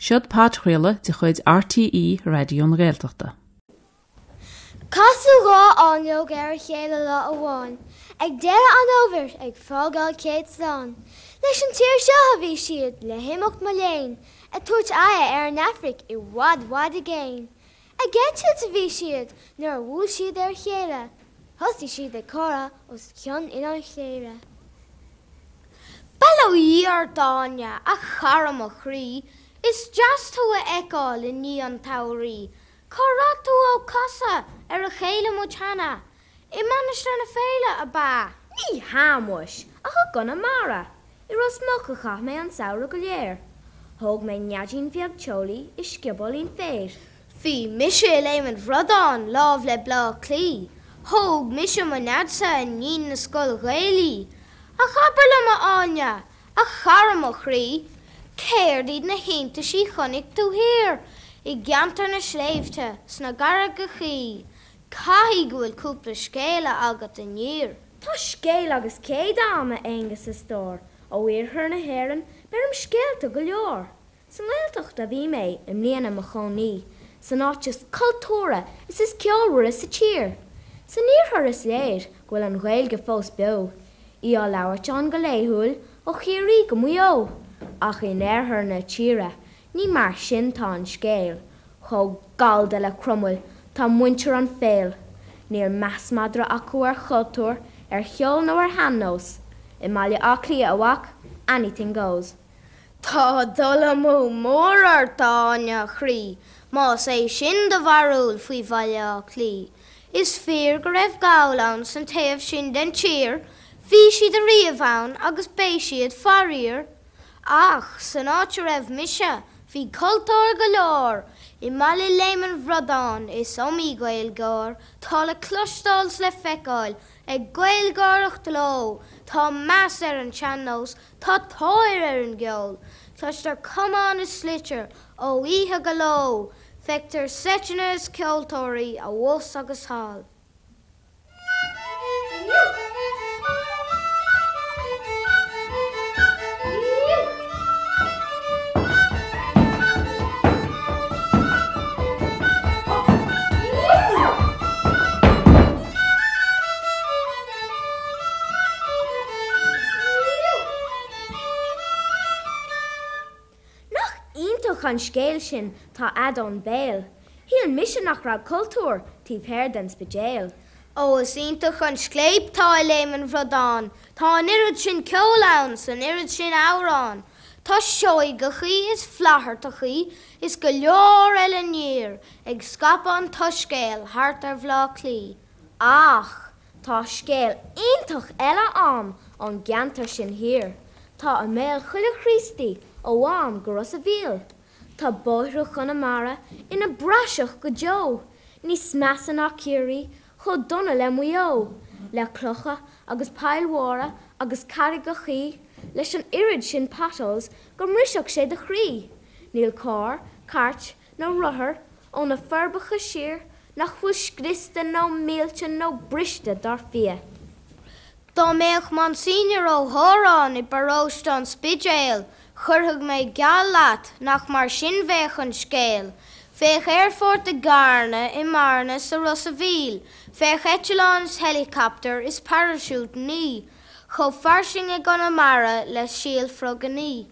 Seod podchraoladh de chuid RTÉ Raidió na Gaeltachta. Casadh 2 fháinleog ar a chéile lá amháin ag deireadh an fhómhair ag fágáil céad slán. Leis an tír seo a bhí siad le himeacht mo léan, ag tabhairt aghaidhe ar an Afraic i bhfad bhfad i gcéin. Ag eitilt a bhí siad nuair a bhuail siad ar a chéile. Thosaigh siad ag comhrá os cionn Oileán Chléire. Bail ó Dhia ort a Áine, a chara mo chroí, Is deas tú a fheiceáil i ndiaidh an tsamhraidh. Cá raibh tú ó casadh ar a chéile muid cheana? I Mainistir na Féile, ab ea? Ní hea, muis, ach i gConamara. I Ros Muc a chaith mé an samhradh go léir. Thóg mé neaidín bheag teolaí i sciobóilín féir. Bhí mise i Léim an Bhradáin láimh le Bleá Cliath. Thóg mise mo neaidse i ndiaidh na scoile Gaelaí. Ach abair liom, a Áine, A chara mo chroí, céard iad na hiontaisí chonaic tú thiar i gceantar na sléibhte 's na gcarraigeachaí? Caithfidh go bhfuil cúpla scéala agat aniar. Tá scéal agus céad a'm, a Aonghus a stór, ó iarthar na hÉireann beirim scéalta go leor. Sa nGaeltacht a bhí mé i mbliana i mo chónaí, san áit is cultúrtha is is ceolmhaire sa tír. San iarthar is léir go bhfuil an Ghaeilge fós beo, í á labhairt ann go laethúil ó Chiarraí go Maigh Eo. Ach in oirthear na tíre ní mar sin tá an scéal, chomh gallda le Cromail tá muintir an Phéil. Níl meas madra acu ar chultúr, ar cheol nó ar shean-nós. I mBaile Átha Cliath, a mhac, anything goes. Tá dul amú mór ort, a Áine, a chroí, más é sin do bharúil faoi Bhaile Átha Cliath. Is fíor go raibh Gaill ann san taobh sin den tír, bhí siad ariamh ann agus beidh siad faraor. Ach san áit a raibh mise, bhí cultúr go leor, i mbaile Léim an Bhradáin is iomaí Gaeilgeoir tá le cloisteáil 's le feiceáil ag Gaelgáireacht leo, tá meas ar an tsean-nós, Tá tóir ar an gceol. Cloistear camán is sliotar ó oíche go ló, feictear seiteanna is ceoltóirí abhus agus thall. Nach iontach an scéal sin tá a'd ón bPéil. Shíl mise nach raibh cultúr taobh thoir den Spidéal. Ó is iontach an scléip tá i Léim an Bhradáin, tá an oiread sin ceoil ann 's an oiread sin amhrán. Tá Seoigeachaí is Flaitheartachaí is go leor eile aniar ag scaipeadh an tsoiscéil thart ar Bhleá Cliath. Ach tá scéal iontach eile a'm ón gceantar sin thiar. Tá i mbéal chuile Chríostaí ó Mhám go Ros a' Mhíl. Tá bóithre Chonamara ina bpraiseach go deo, níos measa ná Ciarraí, chomh dona le Maigh Eo, le clocha agus poill mhóra agus carraigeachaí, leis an oiread sin potholes go mbrisfeadh sé do chroí. Níl carr, cairt nó rothar ó na Forbacha siar nach bhfuil scriosta nó millte nó briste dar fia. Dá mbeadh Monsignor Ó hÓráin i bparóiste an Spidéil, chuirfeadh mé geall leat nach mar sin bheadh an scéal. Bheadh aerfort i gCarna, i mBearna, 's i Ros a' Mhíl, bheadh eitleáin 's helicopter is paraisiútannaí chomh fairsing i gConamara le síol frogannaí.